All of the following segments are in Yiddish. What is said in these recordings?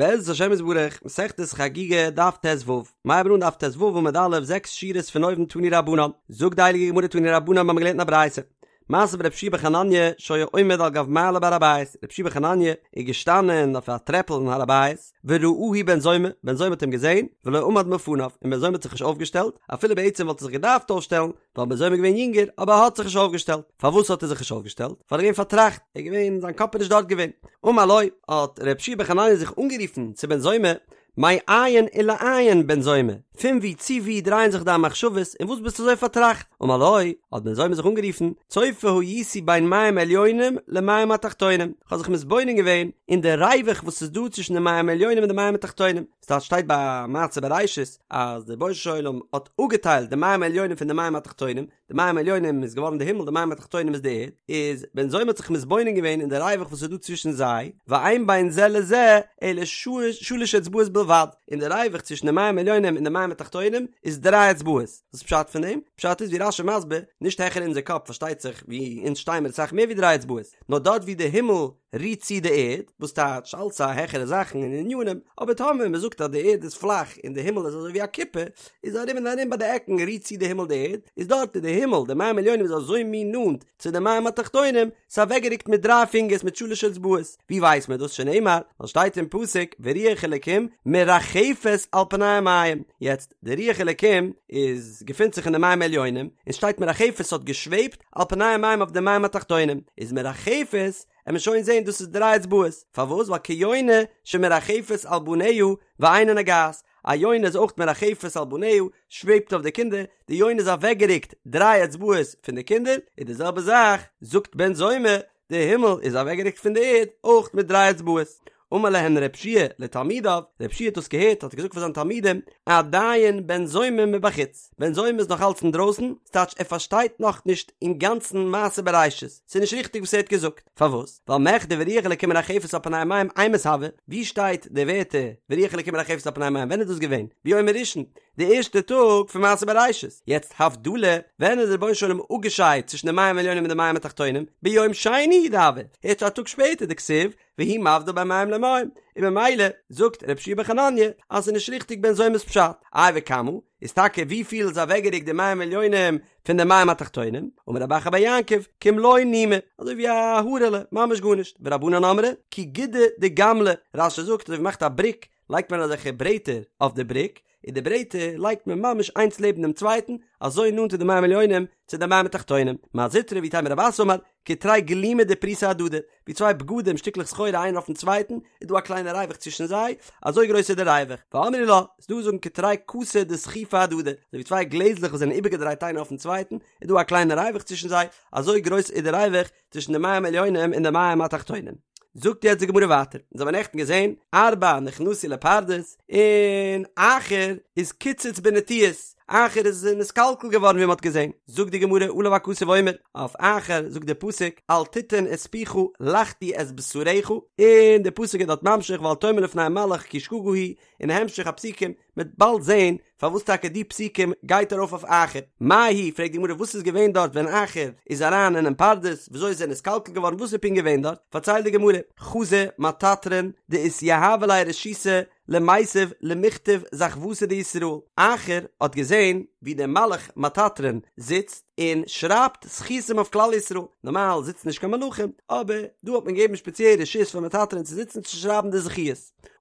בעזרת השם יתברך, מסכת חגיגה, דף ט"ו, מ'הייבן אן דף ט"ו עמוד א', זעקס שורות פון אויבן תנו רבנן, זאגט די הייליגע גמרא תנו רבנן מ'האמיר געלערנט אין א ברייתא, מעשה ברבי יהושע בן חנניה שהיה עומד על גב מעלה בהר הבית, רבי יהושע בן חנניה איז געשטאנען אויף א טרעפל אין הר הבית, וראהו בן זומא, בן זומא האט אים געזען, ולא עמד מלפניו, און בן זומא האט זיך נישט אויפגעשטעלט, אפילו בעצם וואלט ער זיך געדארפט אויפשטעלן, ווייל בן זומא איז געווען יונגער, אבער ער האט זיך נישט אויפגעשטעלט. פארוואס האט ער זיך נישט אויפגעשטעלט? ווייל ער איז געווען פארטראכט, ער איז געווען, זיין קאפ איז נישט דארט געווען. אמר לו, האט ר' יהושע בן חנניה זיך אנגערופן צו בן זומא, מאין ולאין בן זומא, פון וואו צו וואו דרייען זיך דיין מחשבות, און וואס ביסטו אזוי פארטראכט? אמר לו, האט בן זומא זיך אנגערופן, צופה הייתי בין מים עליונים למים התחתונים, איך האב זיך מתבונן געווען אין די ריווח וואס איז דא צווישן די מים עליונים און די מים התחתונים, ס'טייטש שטייט ביי מעשה בראשית אז דער רבונו של עולם האט אפגעטיילט די מים העליונים פון די מים התחתונים, די מים העליונים איז געווארן די הימל די מים התחתונים איז די ערד, איז בן זומא האט זיך מתבונן געווען אין די ריווח וואס איז דא צווישן זיי, ואין בין זה לזה אלא שלש אצבעות בלבד, און די ריווח צווישן די מים העליונים און די מים התחתונים איז דריי אצבעות, וואס איז פשט פון דעם? פשט איז ווי רש"י מסביר, נישט העכער אונזער קאפ פארשטייט זיך ווי אונז שטיי מיר אסאך מער ווי דריי אצבעות, נאר דארט ווי די הימל רירט צו די ערד, וואס טייטש אלץ א העכערע זאכן און ענינים, אבער טאמער מען זאגט אז די ערד איז פלאך און די הימל איז אזוי ווי א כיפה, איז ארום און ארום ביי די עקן רירט צו די הימל די ערד, איז דארט איז די הימל, די מים עליונים איז אזוי מין נאנט צו די מים התחתונים, ס'איז אוועקגערוקט מיט דריי פינגערס מיט שלש אצבעות, ווי ווייסט מען דאס שנאמר, ווייל שטייט אין פסוק ורוח אלקים מרחפת על פני המים, יעצט די רוח אלקים איז געפינט זיך אין די מים עליונים, און שטייט מרחפת האט געשוועבט על פני המים אויף די מים התחתונים, איז מרחפת עמיר שוין זעהן דאס איז דריי אצבעות, פארוואס? ווייל כיונה שמרחפת על בניה ואינה נוגעת, א יונה איז אויך מרחפת על בניה, שוועבט אויף די קינדער, די יונה איז אוועקגערוקט דריי אצבעות פון די קינדער, איז די זעלבע זאך, זאגט בן זומא, די הימל איז אוועקגערוקט פון די ערד אויך מיט דריי אצבעות. אמר להן רב שיע לתלמידיו, רב שיע האט דאס געהערט האט ער געזאגט פאר זיינע תלמידים, עדיין בן זומא מבחוץ, בן זומא איז נאך אלץ אינדרויסן, ס'טייטש ער פארשטייט נאך נישט אינגאנצן מעשה בראשית, ס'איז נישט ריכטיג וואס ער האט געזאגט, פארוואס? ווייל מכדי ורוח אלקים מרחפת על פני המים אימת הוה, ווי שטייט די ווערטער ורוח אלקים מרחפת על פני המים ווען איז דאס געווען? ביום הראשון, די ערשטע טאג פון מעשה בראשית, יעצט הבדלה, ווען איז דער רבונו של עולם אפגעשיידט צווישן די מים עליונים און די מים התחתונים? ביום שני הוא דהוה, ערשט א טאג שפעטער דכתיב והוא מבדיל בין מים למים, און ממילא זאגט רבי יהושע בן חנניה אז ס'איז נישט ריכטיג בן זומא'ס פשט, איי וכמה, איז טאקע ווי פיל איז אוועקגערוקט די מים עליונים פון די מים התחתונים, אמר רב אחא בר יעקב, כמלא נימא, אזוי ווי א הארעלע, ממש גארנישט, ורבנן אמרי, כי גודא דגמלא, רש"י זאגט אזוי ווי מ'מאכט א בריק, לייגט מען אזעלכע ברעטער אויף די בריק, און די ברעטער לייגט מען ממש איינס לעבן דעם צווייטן, אזוי נאנט איז די מים עליונים צו די מים התחתונים. מר זוטרא ואיתימא רב אסי אמר, כתרי גלימי דפריסי אהדדי, ווי צוויי בגדים שטיקלעך סחורה איינער אויפן צווייטן, איז דא א קליינע ריווח צווישן זיי, אזוי גרויס איז די ריווח. ואמרי לה, ס'איז דא וואס זאגן כתרי כסי דסחיפי אהדדי, אזוי ווי צוויי גלעזלעך וואס זענען איבערגעדרייט איינער אויפן צווייטן, איז דא א קליינע ריווח צווישן זיי, אזוי גרויס איז די ריווח צווישן די מים עליונים און די מים התחתונים. זאגט יעצט די גמרא ווייטער, אונז האבן נעכטן געזען, ארבעה נכנסו לפרדס, און אחר איז קיצץ בנטיעות, אחר איז נתקלקל געווארן ווי מען האט געזען, זאגט די גמרא עליו הכתוב אומר, אויף אחר זאגט די פסוק, אל תתן את פיך לחטיא את בשרך, און די פסוק איז דארט ממשיך ואל תאמר לפני המלאך כי שגגה היא, און המשך הפסוקים, מ'וועט באלד זעהן פארוואס טאקע די פסוקים גייט ארויף אויף אחר. מאי היא, פרעגט די גמרא וואס איז געווען דארט ווען אחר איז אריין אינעם פרדס, וויאזוי איז ער נתקלקל געווארן, וואס איז פונקט געווען דארט, פארציילט די גמרא, חזא מטטרון דאתיהיבא ליה רשותא למיתב למכתב זכוותא דישראל, אחר האט געזען ווי דער מלאך מטטרון זיצט און שרייבט זכותים אויף כלל ישראל, נארמאל זיצן נישט קיין מלאכים, אבער דא האט מען געגעבן שפעציעל רשות פאר מטטרון צו זיצן צו שרייבן די זכיות.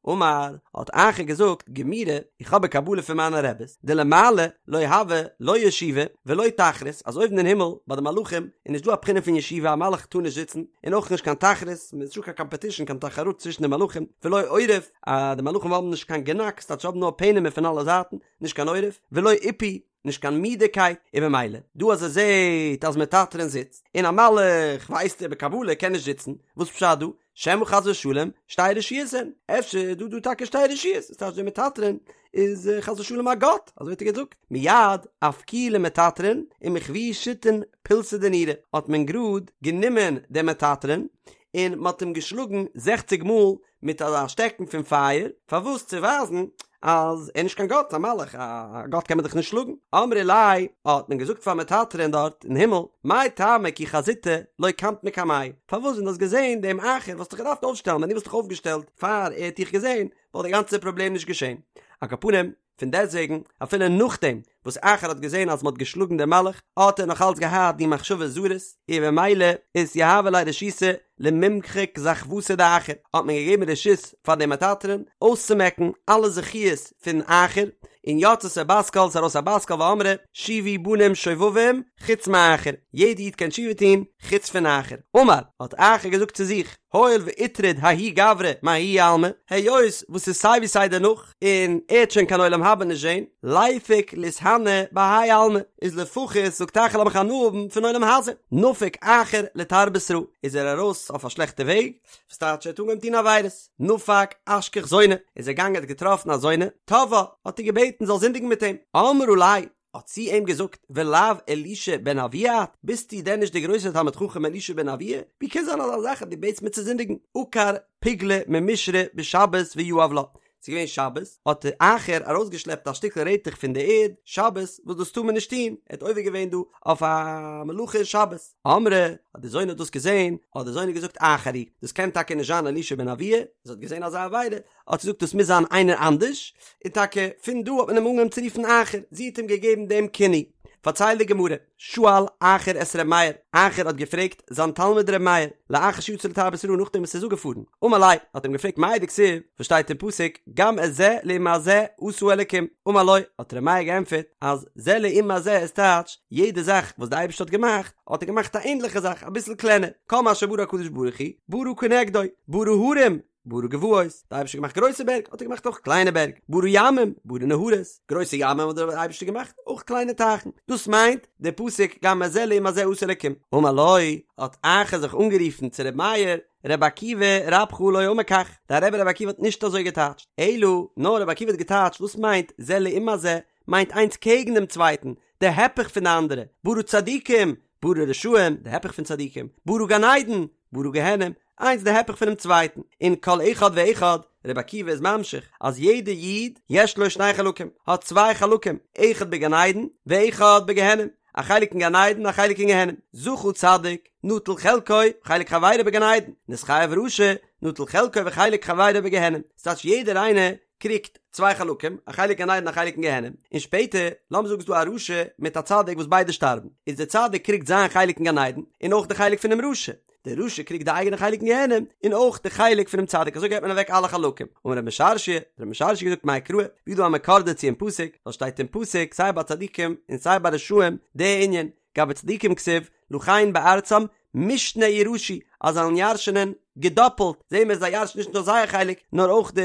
אמר, האט אחר געזאגט, גמירי, איך האב א קבלה פון מיינע רעבעס, דלמעלה לא הוי לא ישיבה ולא תחרות, אז אויבן אין הימל ביי די מלאכים איז נישט דא א בחינה פון ישיבה, א מלאך טאר נישט זיצן, און אויך נישט קיין תחרות, ס'איז נישט דא קיין קאמפעטישן, קיין תחרות צווישן די מלאכים, ולא עורף, אז די מלאכים האבן נישט קיין גענאק, ס'טייטש האבן נאר פענעמער פון אלע זייטן, נישט קיין עורף, ולא עיפוי, נישט קיין מידערקייט, און במילא, דא אז ער זעט אז מטטרון זיצט, און א מלאך ווייסט ער בקבלה קען נישט זיצן, וואס פשט דא? שמא חס ושלום שתי רשויות הן, אפשר איז דא דא טאקע שתי רשויות, וואס טייטש דער מטטרון איז חס ושלום א גאט, אזוי האט ער געזאגט, מיד אפקוהו למטטרון ומחויוהו שיתין פולסי דנורא, האט מען גראד גענומען דעם מטטרון און מען האט אים געשלאגן זעכציג מאל מיט אזא שטעקן פון פייער, פארוואס צו ווייזן אז ער איז נישט קיין גאט, א מלאך, א גאט קען מען דאך נישט שלאגן. אמרי ליה, האט מען געזאגט פאר מטטרון דארט אין הימל, מאי טעמא כי חזיתיה לא קמת מקמיה, פארוואס ווען דו האסט געזען דעם אחר וואלסטו דיך געדארפט אויפשטעלן, ווען דו וואלסט דיך אויפגעשטעלט פאר ער האט דיך געזען, וואלט די גאנצע פראבלעם נישט געשען. על כל פנים, פון דעסטוועגן, אפילו נאכדעם וואס אחר האט געזען אז מען האט געשלאגן דעם מלאך, האט ער נאך אלץ געהאט די מחשבות זרות, און במילא אתיהיבא ליה רשותא למימחק זכוותא דאחר, האט מען געגעבן רשות פאר דעם מטטרון אויסצומעקן אלע זכיות פון אחר, און יצתה בת קול, ס'איז ארויס א בת קול ואמרה, שובו בנים שובבים, חוץ מאחר, יעדע איד קען תשובה טון, חוץ פון אחר. אמר, האט אחר געזאגט צו זיך, הואיל ואיטריד ההוא גברא מההוא עלמא, היות וואס ס'איז סיי ווי סיי דערנאך, און ער וועט שוין קיין עולם הבא נישט זען, ליפוק לאיתהני בהאי עלמא, איז לפחות זאגט אחר לאמיך הנאה האבן פון עולם הזה, נפק אחר לתרבות רעה, איז ער ארויס אויף א שלעכטע וועג, וואס טייטש ער האט אנגעהויבן טון עבירות, נפק אשכח זונה, איז ער געגאנגען האט געטראפן א זונה, תבעה, האט איר געבעטן זאל זינדיגן מיט אים, אמרה ליה, האט זי אים געזאגט, ולאו אלישע בן אבויה את, ביסטו דען נישט דער גרויסער תלמיד חכם אלישע בן אבויה? ווי קען זיין אזא זאך אז דו בעטסט מיר צו זינדיגן? עקר פוגלא ממישרא בשבת ויהב לה, ס'איז געווען שבת, האט אחר ארויסגעשלעפט א שטיקל רעטעך פון די ערד, שבת, וואס דאס טאר מען נישט טון, ער האט עובר געווען דא אויף א מלאכה אין שבת. אמרה, האט די זונה דאס געזען, האט די זונה געזאגט אחר הוא, דאס קען טאקע נישט זיין אלישע בן אבויה, זי האט געזען אזא עבירה, האט זי געזאגט דאס מוז זיין איינער אנדערש, און טאקע פון דא האט מען אים אנגעהויבן צו רופן אחר, זי האט אים געגעבן דעם כינוי. פארציילט די גמרא, שאל אחר את ר' מאיר, אחר האט געפרעגט זיין תלמיד ר' מאיר, לאחר שיצא לתרבות רעה נאכדעם וואס ער איז אפגעפארן, אמר ליה, האט אים געפרעגט מאי דכתיב, וואס שטייט אין פסוק, גם את זה לעומת זה עשה אלקים, אמר לו, האט ר' מאיר געענטפערט, אז זה לעומת זה איז טייטש, יעדע זאך וואס די אייבערשטער האט געמאכט, האט ער געמאכט א ענדליכע זאך, אביסל קלענער, כל מה שברא הקדוש ברוך הוא, ברא כנגדו, ברא הרים, ברא גבעות, די אייבערשטער האט געמאכט גרויסע בערג, האט ער געמאכט אויך קליינע בערג, ברא ימים, ברא נהרות, גרויסע ימים האט דער אייבערשטער געמאכט, אויך קליינע טייכן, דאס מיינט דער פסוק גם את זה לעומת זה עשה אלקים, אמר לו, האט אחר זיך אנגערופן צו ר' מאיר, ר' עקיבא רבך לא אמר כך, דיין רבי ר' עקיבא האט נישט אזוי געטייטשט, אלא, נאר ר' עקיבא האט געטייטשט וואס מיינט זה לעומת זה, מיינט איינס קעגן דעם צווייטן, די הפך פון די אנדערע, ברא צדיקים, ברא רשעים, די הפך פון צדיקים, ברא גן עדן, ברא גיהנום, איינס די הפך פונעם צווייטן, און כל אחד ואחד, רבי עקיבא איז ממשיך, אז יעדע איד, יש לו שני חלקים, האט צוויי חלקים, אחד בגן עדן, ואחד בגיהנום, א חלק אין גן עדן, א חלק אין גיהנום, זכה צדיק, נטל חלקו, וחלק חברו בגן עדן, נתחייב רשע, נטל חלקו וחלק חברו בגיהנום, ס'טייטש יעדער איינער קריגט צוויי חלקים, א חלק גן עדן א חלק אין גיהנום, און שפעטער, לאמיר זאגן ס'איז דא א רשע מיט א צדיק וואס ביידע שטארבן, איז דער צדיק קריגט זיין חלק אין גן עדן, און אויך די חלק פונעם רשע, דער רשע קריגט די אייגענע חלק אין גיהנום, און אויך די חלק פונעם צדיק, אזוי געבט מען אוועק אלע חלקים. אמר רב משרשיא, האט רב משרשיא געזאגט מאי קרא, ווי איז דא א מקור דערצו אין פסוק, ווייל שטייט אין פסוק סיי ביי צדיקים און סיי ביי רשעים די ענין, גבי צדיקים כתיב, לכן בארצם משנה יירשו, אז זיי וועלן ירש'ענען געדאפלט, זעהן מיר זיי ירש'ן נישט נאר זייער חלק, נאר אויך די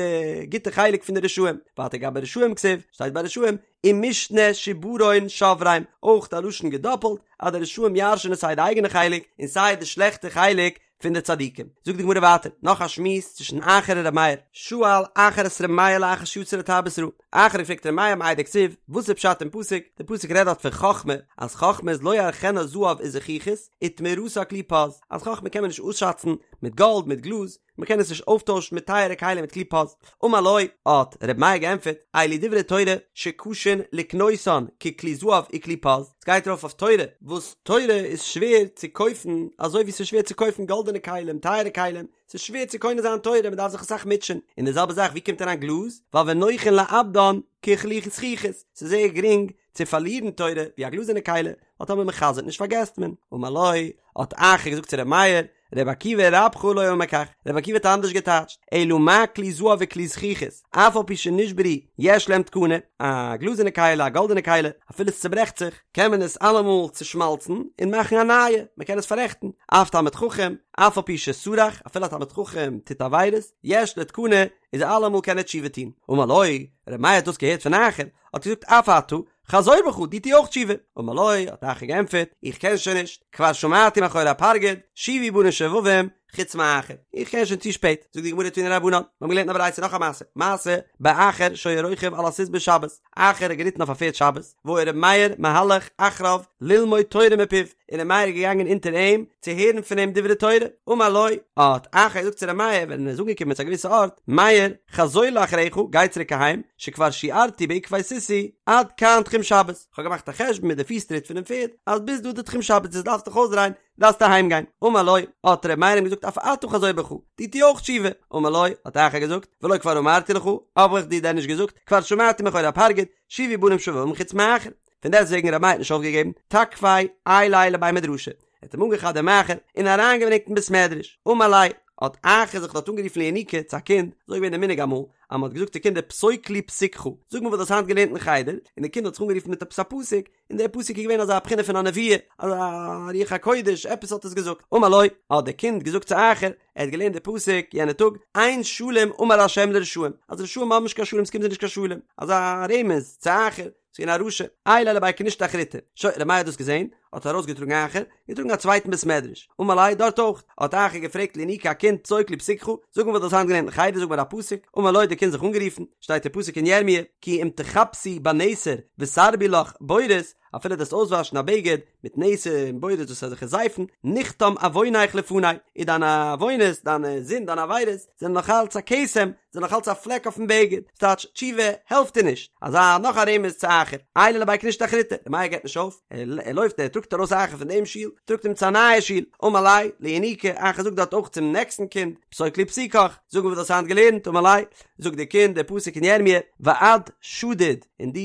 גוטע חלק פון די רשעים, ווייטער גבי רשעים כתיב, שטייט ביי רשעים, ומשנה שברון שברם, אויך א לשון געדאפלט, אז די רשעים ירש'ענען סיי די אייגענע חלק, און סיי די שלעכטע חלק פון די צדיקים. זאגט די גמרא ווייטער, נאך א שמועס צווישן אחר און ר' מאיר, שאל אחר את ר' מאיר לאחר שיצא לתרבות רעה, אחר האט געפרעגט ר' מאיר מאי דכתיב, וואס איז פשט אין פסוק, די פסוק רעדט דארט פון חכמה, אז חכמה איז לא יערכנה זהב וזכוכית, ותמורתה כלי פז, אז חכמה קען מען נישט אויסשאצן מיט גאלד מיט גלאז, מען קען עס נישט אויפטוישן מיט טייערע כלים מיט כלי פז. אמר לו, האט ר' מאיר געענטפערט, אלו דברי תורה שקשין לקנותן ככלי זהב וכלי פז, עס גייט ארויף אויף תורה, וואס תורה איז שווער צו קויפן אזוי ווי עס איז שווער צו קויפן גאלדענע כלים, טייערע כלים, ס'איז שווער צו קונה זיין תורה, מען דארף זיך אסאך מוטשען, און די זעלבע זאך ווי קומט אריין גלאז, ווייל ונוחין לאבדן ככלי זכוכית, ס'איז זייער גרינג צו פארלירן תורה ווי א גלאזערנע כלי, ווייל טאמער מען חזר'ט נישט פארגעסט מען. אמר לו, האט אחר געזאגט צו ר' מאיר, ר' עקיבא רבך לא אמר כך, ר' עקיבא האט אנדערש געטייטשט, אלא מה כלי זהב וכלי זכוכית, אף על פי שנשברו יש להם תקנה, א גלאזערנע כלי, א גאלדענע כלי, אפילו עס צוברעכט זיך, קען מען עס אלעמאל צושמאלצן און מאכן א נייע, מען קען עס פאררעכטן, אף תלמיד חכם, אף על פי שסרח, אפילו א תלמיד חכם טוט עבירות, יש לו תקנה, איז אלעמאל קען ער תשובה טון. אמר לו, ר' מאיר האט דאס געהערט פון אחר, האט ער געזאגט אף אתה, חזור בך, דו טו אויך תשובה. אמר לו, האט אחר געענטפערט, איך קען שוין נישט, כבר שמעתי מאחורי הפרגוד, שובו בנים שובבים, חוץ מאחר, איך קען שוין צו שפעט, זאגט די גמרא תנו רבנן, מיר האבן געלערנט אין א ברייתא נאך א מעשה, מעשה באחר שהיה רוכב על הסוס בשבת, אחר האט געריטן אויף א פערד שבת, והיה ר' מאיר מהלך אחריו ללמוד תורה מפיו, און ר' מאיר איז געגאנגען אונטער אים צו הערן פון אים דברי תורה, אמר לו, האט אחר געזאגט צו ר' מאיר ווען ער איז אנגעקומען צו א געוויסע ארט, מאיר, חזור לאחריך, גיי צוריק אהיים, שכבר שיערתי בעקבי סוסי, עד כאן תחום שבת, כ'האב געמאכט א חשבון מיט די פיס טריט פונעם פערד, אז ביז דא איז די תחום שבת, דו דארפסט דיך אויסדרייען, דארפסט אהיים גיין, אמר לו, האט ר' מאיר אים געזאגט אף אתה חזור בך, דו טו אויך תשובה, אמר לו, האט אחר געזאגט, ולא כבר אמרתי לך, האב איך דיר דען נישט געזאגט, כבר שמעתי מאחורי הפרגוד, שובו בנים שובבים חוץ מאחר. פון דעסטוועגן ר' מאיר האט נישט אויפגעגעבן, תקפיה עייליה לבי מדרשא, ער האט אים אנגעכאפט דעם אחר און אריינגעברענגט אין בית מדרש, אמר ליה, האט אחר זיך דארט אנגערופן לינוקא צו א קינד, אזוי איז געווען די מנהג אמאל, אז מען האט געזאגט צו קינדער פסוק לי פסוקך, זאג מיר וואס דו האסט היינט געלערנט אין חדר, און די קינד האט זיך אנגערופן מיט עפעס א פסוק, און דער פסוק איז געווען אזא בחינה פון א נבואה, אזא רוח הקודש, עפעס האט עס געזאגט. אמר לו, האט דער קינד געזאגט צו אחר, ער האט געלערנט די פסוק יענע טאג, אין שלום אמר ה' לרשעים, אז רשעים האבן נישט קיין שלום, עס קומט זיי נישט קיין שלום, אזא רמז צו אחר, ס'איז געווען א רשע, עייליה לבי כנישתא אחריתא. שוין, ר' מאיר האט דאס געזען, האט ער ארויסגעטראגן אחר, געטראגן א צווייטן בית מדרש, אמר ליה דארט אויך, האט אחר געפרעגט לינוקא א קינד פסוק לי פסוקך, זאג מיר וואס דו האסט היינט געלערנט אין חדר, זאג מיר א פסוק, אמר לו האט די קינד זיך אנגערופן, שטייט אין פסוק אין ירמיה, כי אם תכבסי בנסר ותרבי לך בורית, אפילו דו וועסט אויסוואשן א בגד מיט נסר און בורית דאס איז אזעלכע זייפן, נכתם עוונך לפני, איז דיינע עוונות, דיינע זינד, דיינע עבירות, זענען נאך אלץ א כתם, זענען נאך אלץ א פלעק אויפן בגד, ס'טייטש תשובה העלפט דיר נישט, אזא נאך א רמז צו אחר, עייליה לבי כנישתא אחריתא, ר' מאיר געבט נישט אויף, ער לויפט ער טראגט ארויס אחר פון דעם שול, טראגט אים צו א נייע שול, אמר ליה, לינוקא, אחר זאגט דארט אויך צום נעקסטן קינד, פסוק לי פסוקך, זאג מיר וואס דו האסט היינט געלערנט, אמר ליה, זאגט דער קינד דער פסוק אין ירמיה, ואת שדוד, און דו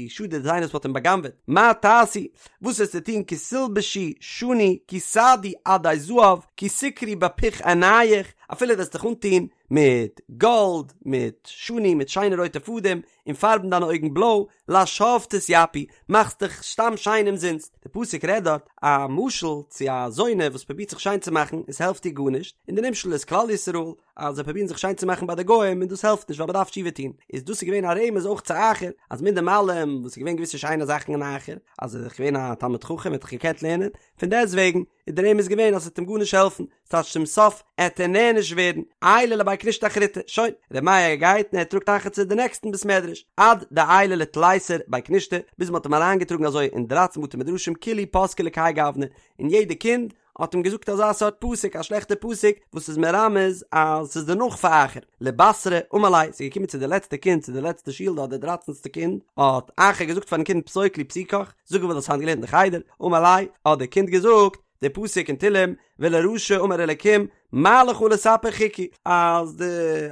שדוד איז איינער וואס מ'האט אים בא'גנב'עט, מה תעשי, וואס וועסטו טון כי תלבשי שני, כי תעדי עדי זהב, כי תקרי בפוך עיניך, אפילו וועסט דיך אנטון מיט גאלד, מיט שני, מיט שיינע רויטע פאדעם, און פארבן דיינע אויגן בלוי, לשווא תתיפי, מאכסט דיך סתם שיין אומזינסט. די פסוק רעדט דארט א משל צו א זונה וואס פרובירט זיך שיין צו מאכן און ס'העלפט איר גארנישט, און די נמשל איז כלל ישראל, אז זיי פרובירן זיך שיין צו מאכן ביי די גוים און דאס העלפט נישט ווייל מ'דארף תשובה טון, איז דאס איז געווען א רמז אויך צו אחר, אז מיט דעם אלעם וואס איז געווען געוויסע שיינע זאכן אין אחר, אז ער איז דאך געווען א תלמיד חכם ער האט דאך געקענט לערנען, פון דעסטוועגן איז דער רמז געווען אז ס'וועט אים גארנישט העלפן, ס'טייטש צום סוף עט ער נענש ווערן, עייליה לבי כנישתא אחריתא, שוין, ר' מאיר גייט און ער טראגט אחר צו די נעקסטן בית מדרש, עד דעייליה לתליסר בי כנישתא, ביז מ'האט אים אריינגעטראגן אזוי אין דרייצן בתי מדרשים כולהו פסקי לכהאי גוונא, און יעדע קינד האט אים געזאגט אזא סארט פסוק, א שלעכטע פסוק, וואס איז מרמז אז ס'איז דערנאך פאר אחר. לבתרא אמר ליה, ס'איז געקומען צו די לעצטע קינד, צו די לעצטע שול דארט, די דרייצנסטע קינד, האט אחר געזאגט פארן קינד פסוק לי פסוקך, זאג מיר וואס האסט היינט געלערנט אין חדר, אמר ליה, האט די קינד געזאגט, די פסוק אין תהלים, ולרשע אמר אלקים, מה לך לספר חוקי, אז די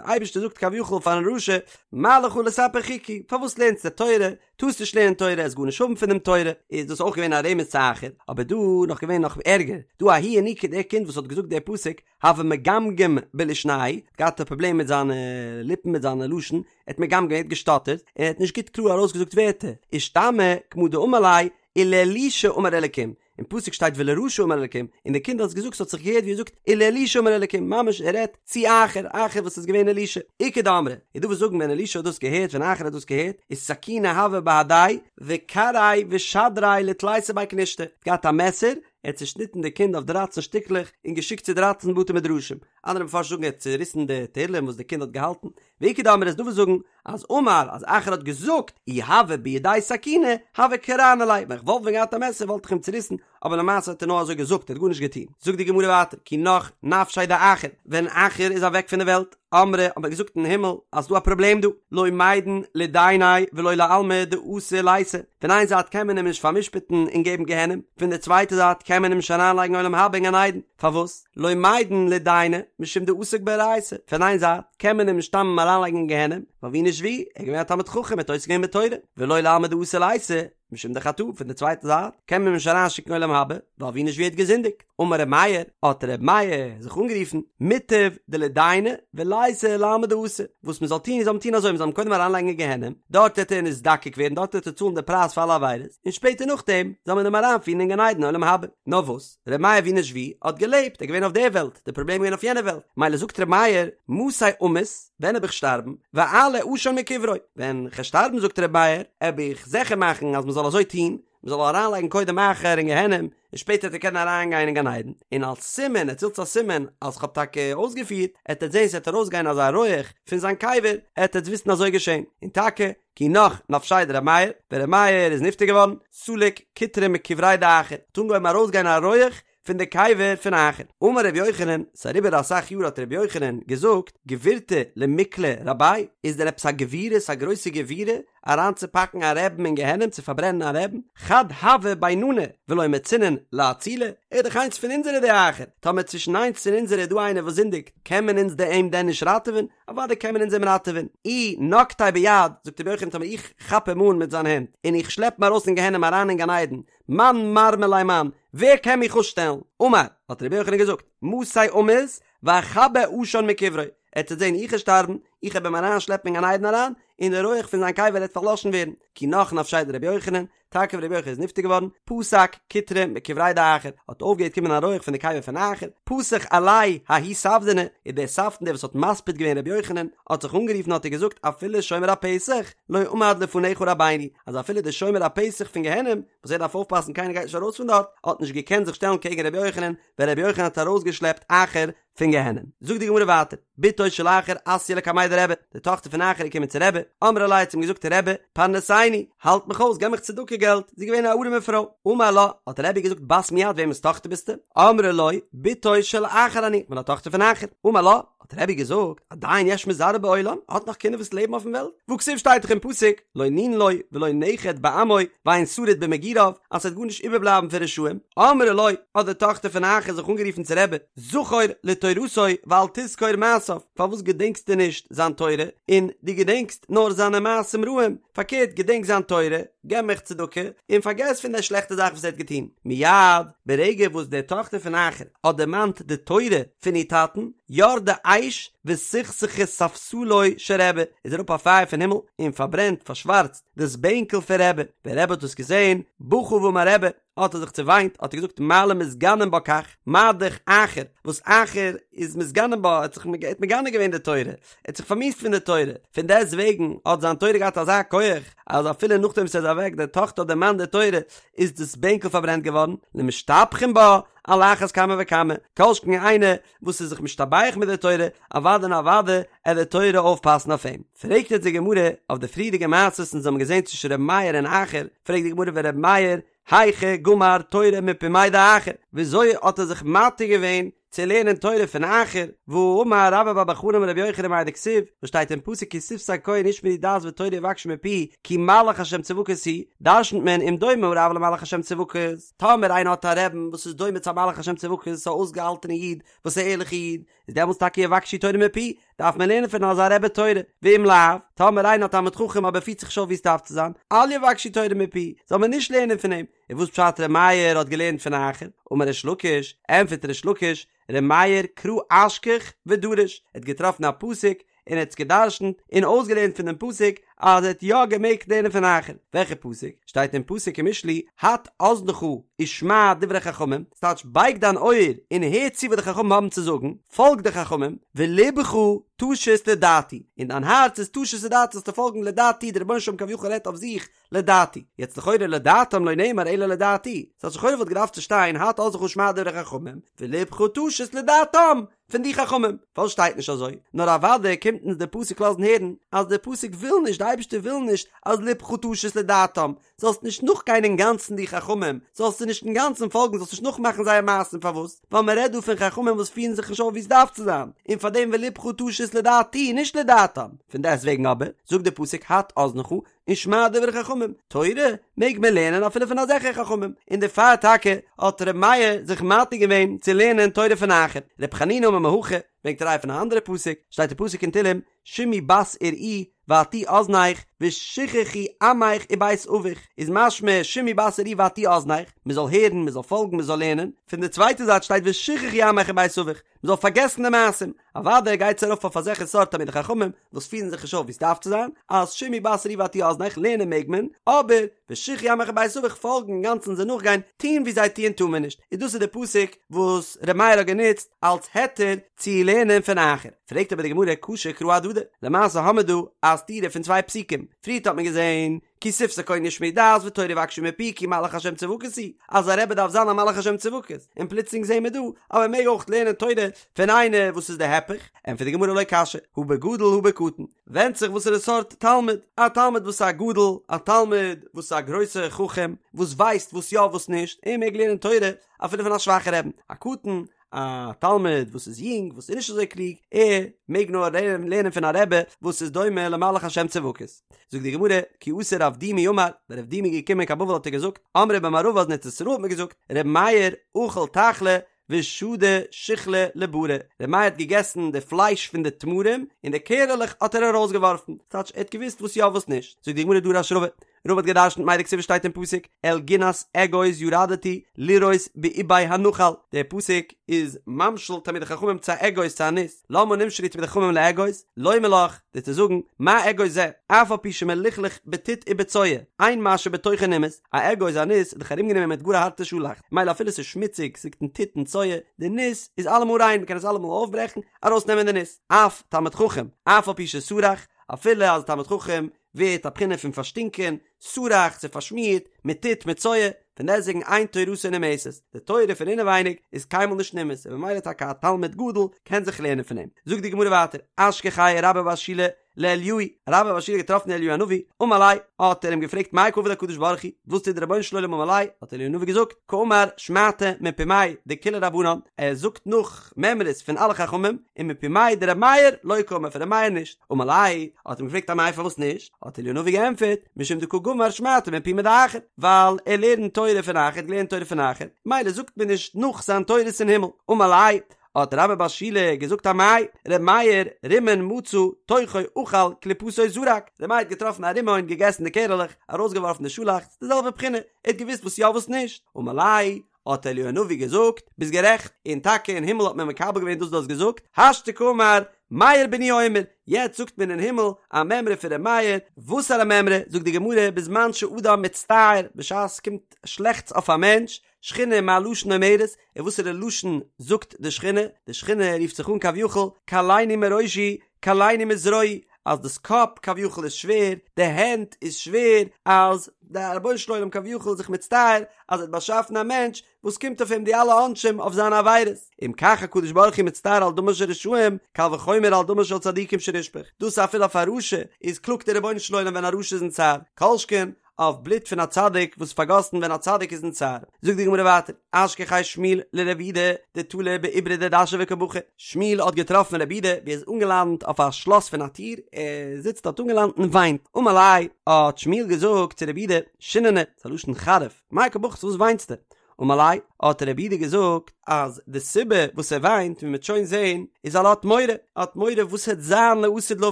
אייבערשטער זאגט כביכול פארן רשע, מה לך לספר חוקי, פארוואס לערנסטו תורה, טארסט נישט לערנען תורה, עסט גארנישט האבן פון דעם תורה, איז דאס אויך געווען א רמז צו אחר, אבער דא נאך געווען נאך ערגער, דא ההוא ינוקא דער קינד וואס האט געזאגט דער פסוק, הוה מגמגם בלישניה, האט געהאט א פראבלעם מיט זיינע ליפן מיט זיינע לשון, ער האט מגמגם ער האט געשטאטערט, און ער האט נישט גוט קלאר ארויסגעזאגט ווערטער, אישתמע כמה דאמר ליה, ולאלישע אמר אלקים, אין פסוק שטייט ולרשע אמר אלקים, און די קינד האט עס געזאגט ס'האט זיך געהערט ווי ער זאגט ולאלישע אמר אלקים, ממש ער רעדט צו אחר, אחר וואס איז געווען אלישע, איכא דאמרי, איז דא וואס זאגן ווען אלישע האט דאס געהערט ווען אחר האט דאס געהערט, איז סכינא הוה בהדיה, וקרעיה ושדריה לתליסר בי כנישתא, האט געהאט א מעסער, ער האט צושניטן די קינד אויף דרייצן שטיקלעך און געשיקט צו דרייצן בתי מדרשים, אנדערע מפרשים זאגן ער האט צוריסן די תהלים וואס די קינד האט געהאלטן, ואיכא דאמרי איז דא וואס זאגן אז אמר אז אחר האט געזאגט אי הוה בידי סכינא הוה קרענא ליה ווען איך וואלט ווען געהאט א מעסער וואלט איך אים צוריסן אבער למעשה האט ער נאר אזוי געזאגט ער האט גארנישט געטון זאגט די גמרא ווייטער כי נח נפשיה דאחר ווען אחר איז אוועק פון די וועלט אמרי האט מען געזאגט אין הימל אז ס'דא א פראבלעם דא לא מידן לידייניה ולא לעלמא דאתי ליתי פון איין זייט קען מען אים נישט פאר'משפט'ן און געבן גיהנום פון די צווייטע זייט קען מען אים נישט אריינלייגן עולם הבא אין גן עדן פארוואס לא מידן לידייניה משום דעסק באורייתא פון איין זייט קען מען אים נישט סתם אריינלייגן אין גיהנום, ווייל ווי נישט ווי, ער איז געווען א תלמיד חכם, ער האט עוסק געווען בתורה, ולא לעלמא דאתי ליתי, משום דחטא, פון די צווייטע זייט, קען מען אים נישט אריינשיקן עולם הבא, ווייל ווי נישט ווי ער האט געזינדיגט. אמר ר' מאיר, האט ר' מאיר זיך אנגערופן, מוטב דלידייניה וליתי לעלמא דאתי, וואס מען זאל טון איז זאל מען טון אזוי, מען זאל אים קודם אריינלייגן אין גיהנום, דארט וועט ער נזדקק ווערן, דארט וועט ער צאלן די פרייז פאר אלע עבירות, און שפעטער נאכדעם זאל מען אים אריינפירן אין גן עדן עולם הבא. נאר וואס? ר' מאיר ווי נישט ווי האט געלעבט, ער איז געווען אויף דער וועלט, די פראבלעם איז געווען אויף יענער וועלט, מילא זאגט ר' מאיר, מתי אמות, ווען העב איך שטארבן, ואעלה עשן מקברו, ווען כ'על שטארבן זאגט ר' מאיר, העב איך זיכער מאכן אז מ'זאל אזוי טון, מ'זאל אריינלייגן קודם אחר אין גיהנום, און און שפעטער וועט ער קענען אריינגיין אין גן עדן, און אלס סימן, עטס ווילטס א סימן אז כ'האב טאקע אויסגעפירט, עט עטס זען ס'וועט ארויסגיין אזא רויעך פון זיין קבר, עט עטס וויסן אזוי געשען, און טאקע, כי נח נפשיה דר' מאיר, ווען ר' מאיר איז נפטר געווארן, סליק קוטרא מקבריה דאחר, האט אנגעהויבן ארויסגיין א רויעך פון די קבר פון אחר. אמר ר' יוחנן, ס'איז אריבער אסאך יאר האט ר' יוחנן געזאגט, גבורתא למיקלא רביה, איז דען עפעס א גבורות א גרויסע גבורה אריינצופאקן א רעבן אין גיהנום צו פארברענען א רעבן, חד הוה ביננא ולא מצינן לאצוליה, ער איז דאך איינס פון אונזערע די אחר, טאמער צווישן איינס פון אונזערע איז דא איינער וואס זינדיגט, קען מען אונז דען אים דען נישט ראטעווען? אוודאי קען מען אונז אים ראטעווען. אי נקטיה ביד, זאגט רבי יוחנן טאמער איך כאפ אים אן מיט זיין הענט, און איך שלעפ אים ארויס פון גיהנום אריין אין גן עדן, מאן מרמי ליה מאן, ווער קען מיך אפשטעלן? אמר, האט רבי יוחנן געזאגט, מתי אמות ואכבה עשן מקברו, ער וועט זען איך וועל שטארבן, איך וועל אים אריינשלעפן אין גן עדן אריין, און די רויעך פון זיין קבר וועט פארלאשן ווערן, כי נח נפשיה דרבי יוחנן, טאקע ווען רבי יוחנן איז נפטר געווארן, פסק קוטרא מקבריה דאחר, האט אויפגעהערט קומען א רויעך פון די קבר פון אחר, פתח עליה ההוא ספדנא, און דער ספדן דער וואס האט מספיד געווען רבי יוחנן, האט זיך אנגערופן האט ער געזאגט אפילו שומר הפתח לא עמד לפניך רבינו, אז אפילו דער שומר הפתח פון גיהנום, וואס ער דארף אויפפאסן קיינער גייט נישט ארויס פון דארט, האט נישט געקענט זיך שטעלן קעגן רבי יוחנן, ווען רבי יוחנן האט ארויסגעשלעפט אחר פון גיהנום. זאגט די גמרא ווייטער, בתו של אחר אתיא לקמיה דרבי, די טאכטער פון אחר איז געקומען צו רבי, אמרה ליה האט זי אים געזאגט רבי, פרנסני, האלט מיך אויס, געב מיך צדקה געלט, זי איז געווען א ארעמע פרוי, אמר לה, האט רבי געזאגט בת מי את, וועמענס טאכטער ביסטו? אמרה לו, בתו של אחר אני, כ'בין א טאכטער פון אחר, אמר לה, האט רבי געזאגט, עדיין יש מזרעו בעולם, האט נאך קינדער וואס לעבן אויפן וועלט? והכתיב שטייט דאך אין פסוק, לא נין לו ולא נכד בעמו ואין שריד במגוריו, אז ס'וועט גארנישט איבערבלייבן פון רשעים, אמרה לו, האט די טאכטער פון אחר זיך אנגערופן צו רבי, זכור לתורתו ואל תזכור מעשיו, פארוואס געדענקסטו נישט זיין תורה, און דו געדענקסט נאר זיינע מעשים רעים, פארקערט געדענק זיין תורה, געב מיך צדקה, און פארגעס פון די שלעכטע זאך וואס ער האט געטון. מיד, ברגע וואס די טאכטער פון אחר האט דערמאנט די תורה פון איר טאטן, ירדה אש וסכסכה ספסלו של רבי, איז אראפ א פייער פון הימל און פארברענט, פארשווארצט, דאס בענקל פון רבי, ווען רבי האט דאס געזען, בכה ואמר רבי, האט ער זיך צעוויינט, האט ער געזאגט מה למתגנין בה כך, מה דאך אחר, וואס אחר איז מתגנין בה, ער האט זיך מגנה געווען די תורה, ער האט זיך פארמיאוסט פון די תורה, פון דעסט וועגן האט זיין תורה געהאט אזא כח, אז אפילו נאכדעם וואס ער איז אוועק, די טאכטער האט דערמאנט די תורה, איז דאס בענקל פארברענט געווארן, למשתבחין בה, על אחת כמה וכמה, כל שכן איינער וואס איז זיך משתבח מיט די תורה, אוודאי און אוודאי עט די תורה אויפפאסן אויף אים. פרעגט יעצט די גמרא אויף די פריערדיגע מעשות אונז האבן געזען צווישן ר' מאיר און אחר, פרעגט די גמרא ור' מאיר היכי גמר תורה מפומיה דאחר, וויאזוי האט ער זיך מתיר געווען צו לערנען תורה פון אחר, והאמר רבה בר בר חנה אמר רבי יוחנן מאי דכתיב, וואס שטייט אין פסוק כי שפתי כהן ישמרו דעת ותורה יבקשו מפיהו, כי מלאך השם צבקות הוא, דרשנ'ט מען אם דומה הרב למלאך השם צבקות, טאמער איינער האט א רעבן וואס איז דומה צו א מלאך השם צבקות, א אויסגעהאלטענע איד וואס איז א ערליכע איד, איז דעמאלטס טאקע יבקשו תורה מפיהו, דארף מען לערנען פון אזא רבי תורה, ואם לאו, טאמער איינער האט א תלמיד חכם אבער פירט זיך נישט אויף ווי עס דארף צו זיין, אל יבקשו תורה מפיהו, זאל מען נישט לערנען פון אים, און וואס פשט ר' מאיר האט געלערנט פון אחר? אמר ריש לקיש, ענטפערט ריש לקיש, ר' מאיר קרא אשכח ודרש, ער האט געטראפן א פסוק און ער האט עס געדרשנט און אויסגעלערנט פון דעם פסוק אז ער האט יא געמעגט לערנען פון אחר, וועלכע פסוק? שטייט אין פסוק אין משלי, הט אזנך ושמע דברי חכמים, ס'טייטש בייג דיין אויער און הער צו וואס די חכמים האבן צו זאגן, פאלג די חכמים, ולבך תשית לדעתי, און דיין הארץ איז תשית לדעתי זאלסטו פאלגן לדעתי, דער רבונו של עולם כביכול רעדט אויף זיך, לדעתי. יעצט לכאורה לדעתם לא נאמר אלא לדעתי. ס'האט לכאורה וואלט געדארפט צו שטיין הט אזנך ושמע דברי חכמים, ולבך תשית לדעתם פון די חכמים. פארוואס שטייט נישט אזוי? נאר אוודאי קומט אונז דער פסוק לאזן הערן אז דער פסוק וויל נישט, די אייבערשטער וויל נישט אז לבך תשית לדעתם, זאלסט נישט נאכגיין אינגאנצן די חכמים, זאלסט זיי נישט אינגאנצן פאלגן, זאלסט נישט נאכמאכן זייער מעשים, פארוואס? ווייל מען רעדט דא פון חכמים וואס פירן זיך נישט אויף ווי עס דארף צו זיין, און פאר דעם ולבך תשית לדעתי, נישט לדעתם. פון דעסט וועגן אבער, זאגט דער פסוק הט אזנך ושמע דברי חכמים, תורה מעג מען לערנען אפילו פון אזעלכע חכמים, און דערפאר טאקע האט ר' מאיר זיך מתיר געווען צו לערנען תורה פון אחר. ר' חנינא אמר מהכא, ברענגט א ראיה פון א אנדערע פסוק, שטייט אין פסוק אין תהלים, שמעי בת וראי והטי אזנך ושכחי עמך ובית אביך, איז משמע שמעי בת וראי והטי אזנך, מען זאל הערן, מען זאל פאלגן, מען זאל לערנען, פון די צווייטע זייט שטייט ושכחי עמך ובית אביך, מען זאל פארגעסן די מעשים, אוודאי גייט עס ארויף אויף אזעלכע סארט תלמידי חכמים וואס פירן זיך נישט אויף ווי עס דארף צו זיין, אז שמעי בת וראי והטי אזנך, לערנען מעג מען, אבער ושכחי עמך ובית אביך פאלגן אינגאנצן זיי נאכגיין, טון ווי זיי טוען טאר מען נישט, און דאס איז די פסוק וואס ר' מאיר האט גענוצט אלס היתר צו לערנען פון אחר. פרעגט אבער די גמרא קשו קראי אהדדי, למעשה האמער דא א סתירה פון צוויי פסוקים, פריערט האט מען געזען. כי שפתי כהן ישמעו דעת ותורה יבקשו מפי כי מלאך השם צבקות הוא, אז א רבי דארף זיין א מלאך השם צבקות, און פלוצלינג זעהן מיר דא אז מען מעג אויך לערנען תורה פון איינער וואס איז די הפך, ענטפערט די גמרא לא קשיא, הא בגדול הא בקטן, ווענדט זיך וואסערע סארט תלמיד, א תלמיד וואס איז א גדול, א תלמיד וואס איז א גרויסע חכם, וואס ווייסט וואס יא וואס נישט, ער מעג לערנען תורה אפילו פון א שוואכע רעבן, א קטן, א תלמיד וואס איז יונג וואס איז נישט אזוי קלוג, ער מעג נאר לערנען פון א רבי וואס איז דומה למלאך השם צבקות. זאגט די גמרא, כי אתא רב דימי אמר, ווען רב דימי איז געקומען קיין בבל האט ער געזאגט, אמרי במערבא אז אין ארץ ישראל האט מען געזאגט, ר' מאיר אכל תחלי ושדי שיחלי לברא, ר' מאיר האט געגעסן די פלייש פון די תמרים און די קערעלעך האט ער ארויסגעווארפן, ס'טייטש ער האט געוואוסט וואס יא וואס נישט, זאגט די גמרא דרש רבא, רבא האט געדרשנט מאי דכתיב שטייט אין פסוק אל גנת אגוז ירדתי לראות באבי הנחל, דער פסוק איז ממשיל תלמידי חכמים צו א אגוז צו א ניס, למה נמשלו תלמידי חכמים לאגוז, לומר לך, דיר צו זאגן, מה אגוז זה, אף על פי שמלוכלך בטיט ובצואה, אין מה שבתוכו נמאס, א אגוז א ניס איז דאך ארומגענומען מיט גאר א הארטע שאלאכץ, מילא אפילו ס'איז שמוציג, ס'ליגט אין טיט און צואה, די ניס איז אלעמאל ריין, מ'קען עס אלעמאל אויפברעכן, ארויסנעמען די ניס. אף תלמיד חכם, אף על פי שסרח, אפילו אז תלמיד חכם ווערט א בחינה פון פארשטינקען, סרח, ס'איז פארשמירט, מיט טיט, מיט צואה, פון דעסטוועגן אין תורתו נמאסת, די תורה פון אינעווייניג איז קיינמאל נישט נמאס, און ממילא טאקע א תלמיד גדול קען זיך לערנען פון אים. זאגט די גמרא ווייטער, אשכחיה רבה בר שילא לאליהו, רבה בר שילא האט געטראפן אליהו הנביא, אמר ליה, האט ער אים געפרעגט מאי קא עביד הקדוש ברוך הוא, וואס טוט דער רבונו של עולם אמר ליה, האט אליהו הנביא געזאגט, קאמר שמעתא מפומיה דכולהו רבנן, ער זאגט נאך מימרות פון אלע חכמים, און מפומיה דרבי מאיר לא קאמר פון רבי מאיר נישט, אמר ליה, האט אים געפרעגט אמאי פארוואס נישט, האט אליהו הנביא געענטפערט, משום דקא גמר שמעתא מפומיה דאחר, ווייל ער לערנט תורה פון אחר, ער האט געלערנט תורה פון אחר, מילא זאגט מען נישט נאך זיין תורות אין הימל, אמר ליה, האט רבה בר שילא געזאגט אמאי, ר' מאיר רימון מצא תוכו אכל קליפתו זרק, ר' מאיר האט געטראפן א רימון געגעסן די קערעלעך, ארויסגעווארפן די שאלאכץ, די זעלבע בחינה, ער האט געוואוסט וואס יא וואס נישט, אמר ליה, האט אליהו הנביא געזאגט, ביסט גערעכט, און טאקע אין הימל האט מען מקבל געווען דאס דו האסט געזאגט, השתא קאמר מאיר בני אומר, יעצט זאגט מען אין הימל א מימרא פון ר' מאיר, וואסארא מימרא, זאגט די גמרא, בזמן שאדם מצטער, בשעת ס'קומט שלעכטס אויף א מענטש, שכינה מה לשון אומרת, און וואסערע לשון זאגט די שכינה, די שכינה רופט זיך אן כביכול, קלני מראשי, קלני מזרועי, אז דאס קאפ כביכול איז שווער, די הענט איז שווער, אז דער רבונו של עולם כביכול איז זיך מצטער אז ער האט באשאפן א מענטש וואס קומט אויף אים די אלע עונשים אויף זיינע עבירות, אם כך הקדוש ברוך הוא מצטער על דמן של רשעים, קל וחומר על דמן של צדיקים שנשפך, דאס אפילו אויף א רשע איז קלאגט דער רבונו של עולם ווען א רשע איז אין צער, כל שכן אויף בלוט פון א צדיק וואס איז פארגאסן ווען א צדיק איז אין צער. זאגט די גמרא ווייטער, אשכחיה שמואל לרב יהודה דתלי בעיברא דדשא וקא בכי, שמואל האט געטראפן רב יהודה ווי ער איז אנגעלאנט אויף א שלאס פון א טיר, ער זיצט דארט אנגעלאנט און וויינט, אמר ליה, האט שמואל געזאגט צו רב יהודה, שיננא, ס'איז א לשון חריף, מאי קא בכית וואס וויינסטו? אמר ליה, האט רב יהודה געזאגט אז די סיבה וואס ער וויינט ווי מ'וועט שוין זעהן איז ווייל ער האט מורא, ער האט מורא וואס העט זיין לעתיד לבוא,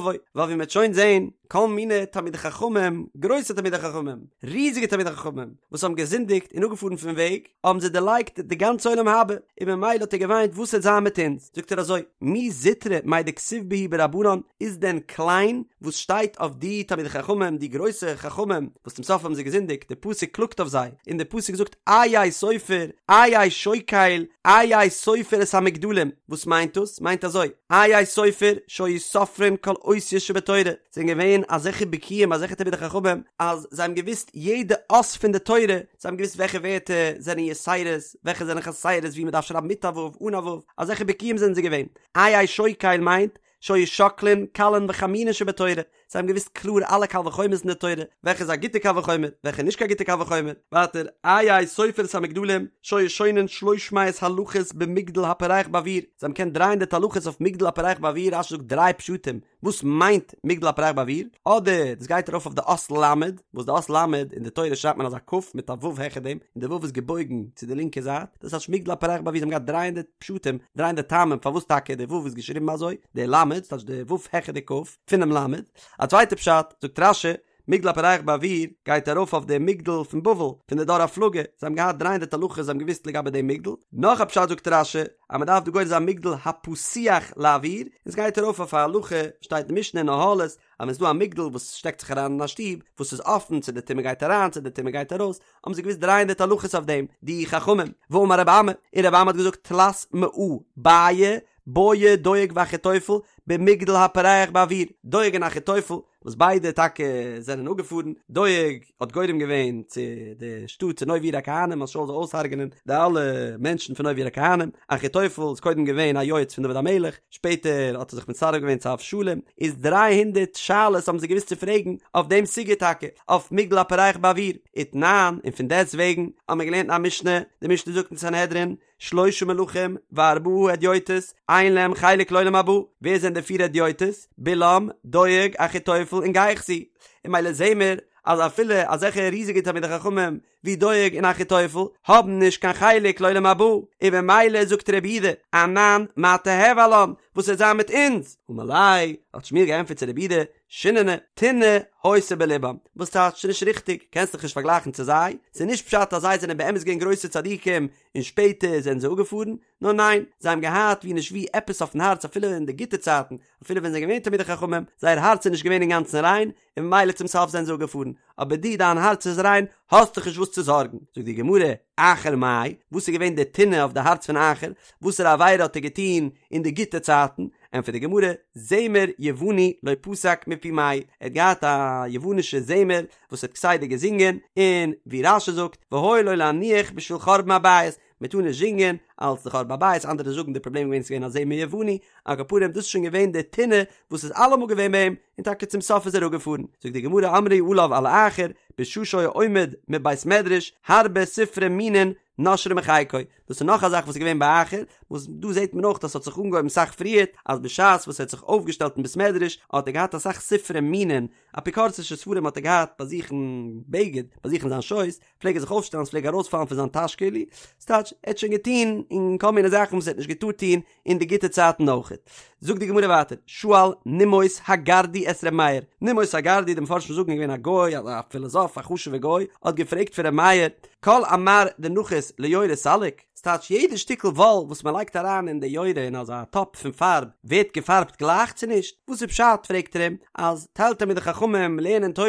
ווייל ווי מ'וועט שוין זעהן כל מיני תלמידי חכמים, גרויסע תלמידי חכמים, ריזיגע תלמידי חכמים, וואס האבן געזינדיגט און אפגעפארן פון וועג, האבן זיי דערלייגט די גאנצע עולם הבא, און ממילא האט ער געוויינט וואס העט זיין מיט אונז, זאגט ער אזוי, מי זוטרא מאי דכתיב בהו ברבנן, איז דען קליין וואס שטייט אויף די תלמידי חכמים, די גרויסע חכמים, וואס צום סוף האבן זיי געזינדיגט, די פסוק קלאגט אויף זיי, און די פסוק זאגט איה סופר, איה שוקל, איה סופר את המגדלים, וואס מיינט דאס? מיינט אזוי, איה סופר, שהיו סופרים כל אותיות שבתורה, זענען געווען אזעלכע בקיאים, אזעלכע תלמידי חכמים, אז זיי האבן געוואוסט יעדע אות פון די תורה, זיי האבן געוואוסט וועלכע ווערטער זענען יתירות, וועלכע זענען חסרות, ווי מען דארף שרייבן מיט א ו', אן א ו', אזעלכע בקיאים זענען זיי געווען. איה שוקל מיינט, שהיו שוקלין קלין וחמורין שבתורה, זיי האבן געוואוסט קלאר אלע קל וחומר'ס אין די תורה, וועלכע איז א גוטע קל וחומר, וועלכע איז נישט קיין גוטע קל וחומר, ווייטער, איה סופר את המגדלים, שהיו שונין שלוש מאות הלכות במגדל הפורח באוויר, זיי האבן געקענט דריי הונדערט הלכות אויף מגדל הפורח באוויר, רש"י זאגט דריי פשטים, וואס מיינט מגדל הפורח באוויר, אדער דאס גייט ארויף אויף די אות ל', וואס די אות ל' אין די תורה שרייבט מען אזא כ' מיט א ו' העכער דעם, און די ו' איז געבויגן צו די לינקע זייט, דאס הייסט מגדל הפורח באוויר, זיי האבן געהאט דריי הונדערט פשטים, דריי הונדערט טעמים פארוואס טאקע די ו' איז געשריבן אזוי, די ל', ס'טייטש די ו' העכער די כ', פונעם ל'. א צווייטע פשט, זאגט רש"י, מגדל הפורח באוויר גייט ארויף אויף די מגדל פון בבל, פון די דור הפלגה, זיי האבן געהאט דריי הונדערט הלכות זיי האבן געוואוסט לגבי דעם מגדל. נאך א פשט זאגט רש"י, אז מען דארף דא גורס זיין מגדל הפתוח לאוויר, און ס'גייט ארויף אויף א הלכה, שטייט אין משנה אין אהלות, אז ווען ס'דא א מגדל וואס שטעקט זיך אריין אין א שטוב, וואס איז אפן צו די טומאה גייט אריין צו די טומאה גייט ארויס, האבן זיי געוואוסט דריי הונדערט הלכות אויף דעם, די חכמים, ואמר רבי אמי, און רבי אמי האט געזאגט תלת מאה בעיי בעי דואג ואחיתופל. במגדל הפורח באויר, דואג און אחיתופל, וואס ביידע טאקע זענען אפגעפארן, דואג האט גורם געווען צו די שטאט צו נוב עיר הכהנים אז שאול זאל אויסהרג'נען די אלע מענטשן פון נוב עיר הכהנים, אחיתופל איז קודם געווען א יועץ פון דוד המלך, שפעטער האט ער זיך מצטרף געווען צו אבשלום, איז דריי הונדערט שאלות האבן זיי געוואוסט צו פרעגן אויף דעם סוגיא טאקע, אויף מגדל הפורח באויר, ותנן, און פון דעסט וועגן האבן מיר געלערנט אין א משנה, די משנה זאגט אין סנהדרין, שלשה מלכים וארבעה הדיוטות אין להם חלק לעולם הבא, ווער זענען די פיר הדיוטות? בלעם, דואג, אחיתופל און גיחזי, און ממילא זעהן מיר אז אפילו אזעלכע ריזיגע תלמידי חכמים ווי דואג און אחיתופל האבן נישט קיין חלק לעולם הבא, און במילא זאגט רבי יהודה, אנן מה תיהוי עלן, וואס וועט זיין מיט אונז? אמר ליה, האט שמואל געענטפערט צו רבי יהודה, שיננא, טינא היתה בלבם, וואס טייטש ס'נישט ריכטיג, קענסט דיך נישט פארגלייכן צו זיי, ס'איז נישט פשט אז זיי זענען באמת געווען גרויסע צדיקים און שפעטער זענען זיי אפגעפארן, נאר ניין, זיי האבן געהאט ווי נישט ווי עפעס אויפן הארץ אפילו אין די גוטע צייטן, אפילו ווען זיי זענען געווען תלמידי חכמים, זייער הארץ איז נישט געווען אינגאנצן ריין, און ממילא צום סוף זענען זיי אפגעפארן, אבער דו דיין הארץ איז ריין, האסט דיך נישט וואס צו זארגן. זאגט די גמרא, אחר מאי, וואס איז געווען די טינא אויף די הארץ פון אחר, וואסערע עבירה האט ער געטון אין די גוטע צייטן, ענטפערט די גמרא, זמר יווני לא פסק מפומיה, ער האט געהאט א יוונישע זמר וואס ער האט כסדר געזינגען, און ווי רש"י זאגט, והיה לו להניח בשביל חורבן הבית, מען טאר נישט זינגען אלס די חורבן הבית, אנדערע זאגן די פראבלעם איז געווען ס'איז געווען א זמר יווני, על כל פנים דאס איז שוין געווען די טינא וואס איז אלעמאל געווען ביי אים, און טאקע צום סוף איז ער אפגעפארן. זאגט די גמרא אמרו עליו על אחר, בשעה שהיה עומד מבית מדרש, הרבה ספרי מינין נושרין מחיקו, דאס איז נאך א זאך וואס איז געווען ביי אחר, וואס דא זעט מען אויך אז ס'האט זיך אנגעהויבן סאך פריערט, אז בשעת וואס ער האט זיך אויפגעשטעלט אין בית מדרש האט ער געהאט אסאך ספרי מינין, אפיקורסישע ספרים האט ער געהאט ביי זיך אין בגד, ביי זיך אין זיין שויס, פלעג ער זיך אויפשטעלן ס'פלעג ארויספאלן פון זיין טאש כאילו, ס'טייטש ער האט שוין געטון אין כל מיני זאכן וואס ער האט נישט געטארט טון אין די גוטע צייטן אויכעט. זאגט די גמרא ווייטער, שאל נימוס הגרדי את ר' מאיר, נימוס הגרדי, די מפרשים זאגן איז געווען א גוי, א פילאזאף, א חשוב'ער גוי, האט געפרעגט פון ר' מאיר, כל עמר דנחית ליורה סליק, ס'טייטש יעדע שטיקל וואל וואס מ'לייגט אריין אין די יורה אין אזא טאפ פון פארב ווערט געפארבט גלייך צו נישט? וואס איז פשט פרעגט ער אים, אז טייל תלמידי חכמים לערנען תורה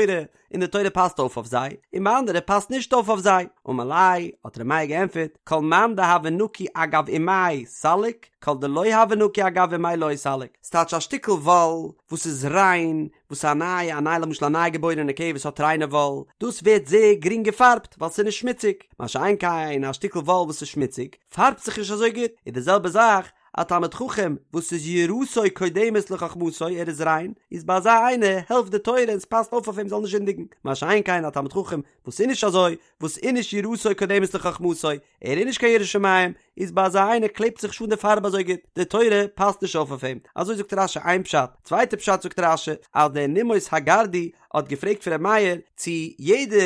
און די תורה פאסט אויף אויף זיי, און ביי אנדערע פאסט נישט אויף אויף זיי. אמר ליה, האט ר' מאיר געענטפערט, כל מאן דהוה נקי אגב אימיה סליק, כל דלא הוה נקי אגב אימיה לא סליק. ס'טייטש א שטיקל וואל וואס איז ריין, וואס איז א נייע, א נייע למשל א ניי געבוירענע כבש האט ריינע וואל, דאס ווערט זייער גרינג געפארבט ווייל ס'איז נישט שמוציג, מה שאין כן א שטיקל וואל וואס איז שמוציג, פארבט זיך נישט אזוי גוט, איז די זעלבע זאך א תלמיד חכם וואס איז יראתו קודמת לחכמתו, ער איז ריין, איז ביי אזא איינער העלפט די תורה און ס'פאסט אויף אויף אים זאל נישט זינדיגן, מה שאין כן א תלמיד חכם וואס איז נישט אזוי, וואס איז נישט יראתו קודמת לחכמתו, ער איז נישט קיין ירא שמים, איז ביי אזא איינער קלעבט זיך נישט אן די פארב אזוי גוט, די תורה פאסט נישט אויף אויף אים, אזוי זאגט רש"י איין פשט, צווייטע פשט זאגט רש"י אז דער נימוס הגרדי האט געפרעגט פון ר' מאיר צו יעדע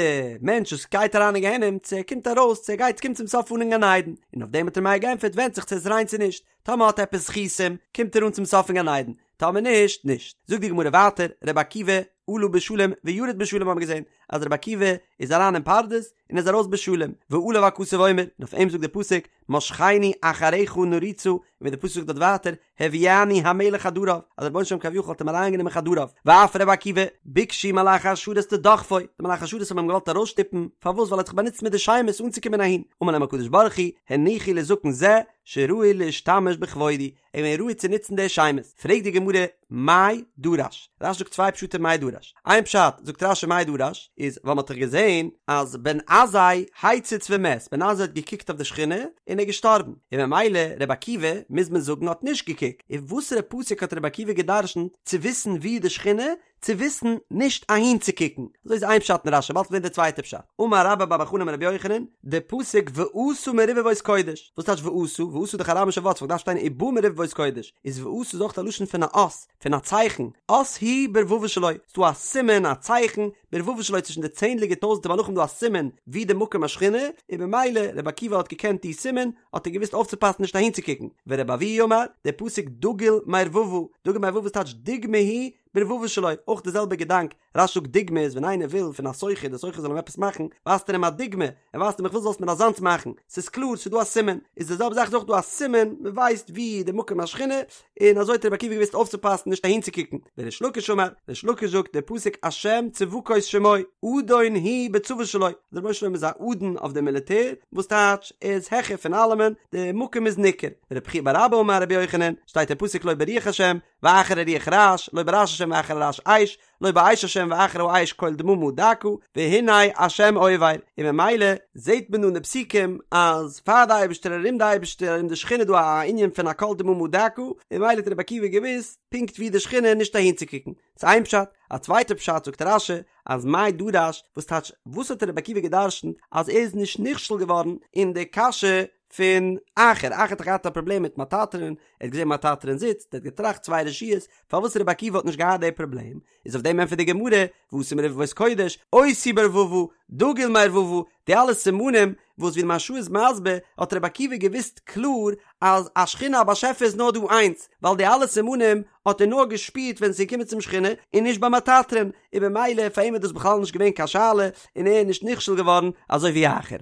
מענטש וואס גייט אריין אין גיהנום צו ער קומט ארויס צו ער גייט קומט צום סוף אן אין גן עדן, און אויף דעם האט ר' מאיר געענטפערט ווענדט זיך צו ער איז ריין צו נישט, טאמער האט ער עפעס זכותים קומט ער אן צום סוף אין גן עדן, טאמער נישט, נישט. זאגט די גמרא ווייטער, רבי עקיבא עלה בשלום וירד בשלום האבן מיר געזען אז רבי עקיבא איז אריין אין פרדס און איז ארויס בשלום, ועליו הכתוב אומר, און אויף אים זאגט דער פסוק, משכני אחריך נרוצה, און ווי דער פסוק זאגט דארט ווייטער, הביאני המלך חדריו, אז דער רבונו של עולם כביכול האט אים אריינגענומען חדריו, ואף רבי עקיבא, ביקשו מלאכי השרת לדוחפו, די מלאכי השרת האבן אים געוואלט ארויסשטופן, פארוואס ווייל ער האט זיך באנוצט מיט די שמות אנצוקומען אהין, אמר להם הקדוש ברוך הוא, הניחו לזקן זה, שראוי להשתמש בכבודי, ער איז געווען ראוי צו נוצן די שמות. פרעגט די גמרא, מאי דרש? רש"י זאגט צוויי פשטים מאי דרש. איין פשט, זאגט רש"י מאי דרש, איז ווייל מ'האט דאך געזען אז בן עזאי הציץ ומת, בן עזאי האט געקוקט אויף די שכינה און ער איז געשטארבן, און ממילא רבי עקיבא, מוז מען זאגן, האט נישט געקוקט. און וואסערע פסוק האט רבי עקיבא גע'דרש'נט צו וויסן וואו איז די שכינה? צו וויסן נישט אהין צו קוקן, אזוי איז איין פשט אין רש"י, באלד וועט מען זען די צווייטע פשט, אמר רבה בר בר חנה אמר רבי יוחנן, די פסוק ואתא מרבבות קודש, וואס טייטש ואתא? ואתא איז דאך אראמישע ווארט, ס'וואלט געדארפט שטיין ובא מרבבות קודש, איז ואתא איז אויך א לשון פון א אות, פון א צייכן, אות הוא ברבבות שלו, ס'דא א סימן, א צייכן, ברבבות שלו צווישן די צענדליגע טויזנטער מלאכים דא א סימן ווי די מקום השכינה, און במילא רבי עקיבא האט געקענט די סימן, האט ער געוואוסט אויפצופאסן נישט אהין צו קוקן, ורבי אבהו אמר, די פסוק דגול מרבבה, דגול מרבבה איז טייטש דוגמא הוא. ברבבה שלו, אויך די זעלבע געדאנק, רש"י זאגט דוגמא איז ווען איינער וויל פון א סוחר די סוחר זאל אים עפעס מאכן, ווייזט ער אים א דוגמא, ער ווייזט אים איך וויל זאלסט מיר אזאנס מאכן, ס'איז קלאר ס'איז דא א סימן, איז די זעלבע זאך איז אויך דא א סימן, מ'ווייסט ווי די מקום השכינה, און אזוי האט רבי עקיבא געוואוסט אויפצופאסן נישט אהינצוקוקן, וריש לקיש אמר, ריש לקיש זאגט די פסוק השם צבקות שמו, אדון הוא בצבא שלו, דער רבונו של עולם איז א אדון אויף די מיליטער, וואס טייטש ער איז העכער פון אלעמען, די מקום איז ניכר, רבי חייא בר אבא אמר רבי יוחנן, שטייט אין פסוק לא ברוח השם, ואחר הרוח רעש, לא ברעש השם ואחר הרעש אש, לא באש השם ואחר האש קול דממה דקה, והנה השם עובר, און ממילא זעט מען דא אין די פסוקים אז פאר די אייבערשטער ארום די אייבערשטער ארום די שכינה איז דא א ענין פון א קול דממה דקה, און ממילא האט רבי עקיבא געוואוסט פונקט ווי די שכינה נישט אהינצוקוקן. ס'איז איין פשט, א צווייטע פשט זאגט רש"י אז מאי דרש, וואס טייטש וואס האט רבי עקיבא גע'דרש'נט אז ער איז נישט נכשל געווארן אין די קשיא פון אחר, אחר האט דאך געהאט א פראבלעם מיט מטטרון, ער האט געזען מטטרון זיצט, ער האט געטראכט צוויי רשויות, פארוואס רבי עקיבא האט נישט געהאט די פראבלעם, איז אויף דעם ענטפערט די גמרא, ואתי מרבבות קודש, אותי ברבבה, דגול מרבבה, די אלע סימנים, וואס ווי די מהרש"א איז מסביר, האט רבי עקיבא געוואוסט קלאר אז א שכינה א באשעפער איז נאר דא איינס, ווייל די אלע סימנים האט ער נאר געשפירט ווען עס איז געקומען צום שכינה, און נישט ביי מטטרון, און במילא פאר אים איז דאס בכלל נישט געווען קיין שאלה, און ער איז נישט נכשל געווארן אזוי ווי אחר.